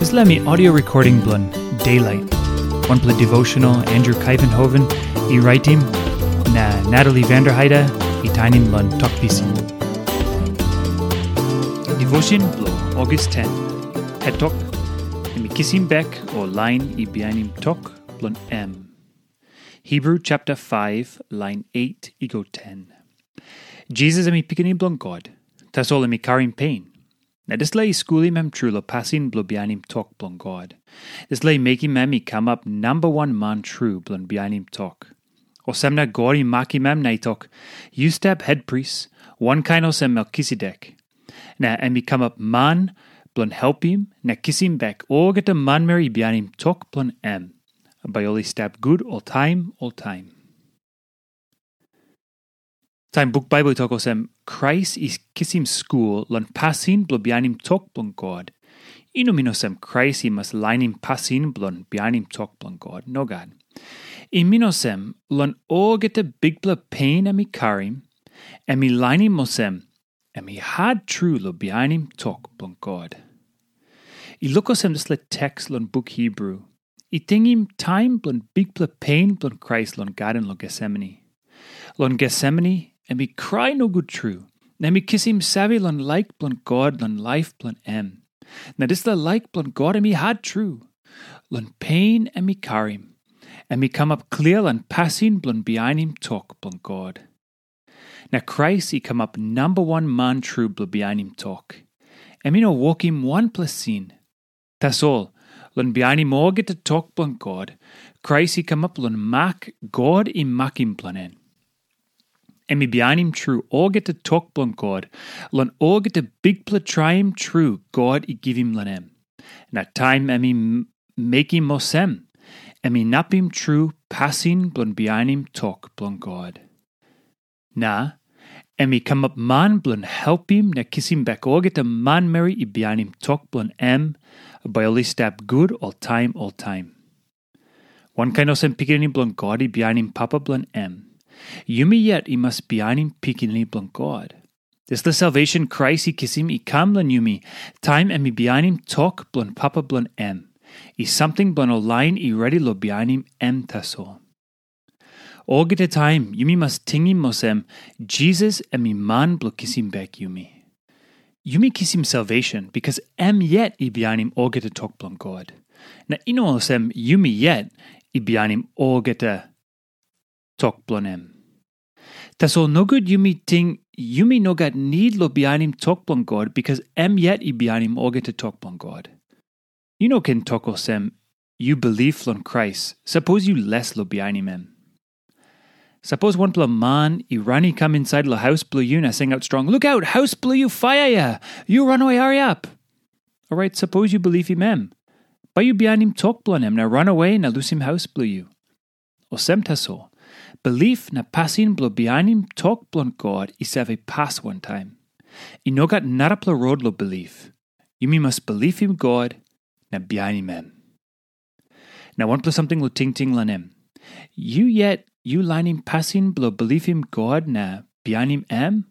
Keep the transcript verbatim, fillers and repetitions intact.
Dispela mi audio recording bilong Daylight, wanpela devotional Andrew Kaivenhoven i raitim, na Natalie Vanderheide i tainim long Tok Pisin. Devotion bilong August ten. Het tok, em i kisim bek ol lain i bihainim tok bilong em. Hebru chapter five, lain eight i go ten. Jisas em i Pikinini bilong God, tasol em i karim pen. Na dispela i skulim em tru long pasin bilong bihainim tok bilong God. Dispela i mekim em i kamap namba wan man tru bilong bihainim tok. Olsem na God i makim em na i tok, "Yu stap hetpris, wankain olsem Melkisedek." Na em i kamap man bilong helpim na kisim bek olgeta manmeri i bihainim tok bilong em. Bai ol i stap gut oltaim, oltaim. Taim buk Baibel i tok olsem, Krais i kisim skul long pasin bilong bihainim tok bilong God, i no min olsem Krais i mas lainim pasin bilong bihainim tok bilong God. Nogat. I min olsem, long olgeta bikpela pen em i karim, em i lainim olsem, em i hat tru long bihainim tok bilong God. I luk olsem dispela teks long buk Hebru i tingim taim bilong bikpela pen bilong Krais long gaden long Getsemani. Long Getsemani, em i krai nogut tru, na em i kisim save long laik bilong God long laip bilong em. Na dispela laik bilong God em i hat tru. Long pen em i karim, em i kamap klia long pasin bilong bihainim tok bilong God. Na Krais i kamap namba wan man tru bilong bihainim tok. Em i no wokim wanpela sin. Tasol, long bihainim olgeta tok bilong God, Krais i kamap long mak God i makim bilong en. Em i bihainim tru olgeta tok bilong God long olgeta bikpela traim tru God i givim long em. Na taim em i m- mekim olsem, em inapim tru pasin bilong bihainim tok bilong God. Na em i kamap man bilong helpim na kisim bek olgeta manmeri i bihainim tok bilong em, bai ol i stap gut oltaim oltaim. Wankain olsem Pikinini bilong God i bihainim Papa bilong em, yumi yet i mas bihainim Pikinini bilong God. Dispela salvation Krais i kisim i kam long yumi, taim em i bihainim tok bilong Papa bilong em, i samting bilong ol lain i redi long bihainim em tasol. Olgeta taim yumi mas tingim olsem, Jisas em i man bilong kisim bek yumi. Yumi kisim salvation bikas em yet i bihainim olgeta tok bilong God. Na i no olsem yumi yet i bihainim olgeta tok bilong em. Tasol nogut yumi ting yumi no gat nid long bihainim tok bilong God bikas em yet i bihainim olgeta tok bilong God. Yu no ken tok olsem, yu bilip long Krais, sapos yu les long bihainim em. Sapos wanpela man i ran i kam insait long haus bilong yu na singaut strong, "Lukaut, haus bilong yu faia ya! Yu ranawe hariap!" Orait sapos yu bilipim em, bai yu bihainim tok bilong em na ranawe na lusim haus bilong yu. Olsem tasol, bilip na pasin bilong bihainim tok bilong God i save pas wantaim. I no gat narapela rot long bilip. Yumi mas bilipim God na bihainim em. Na wanpela samting long tingting long em. Yu yet yu lainim pasin bilong bilipim God na bihainim em,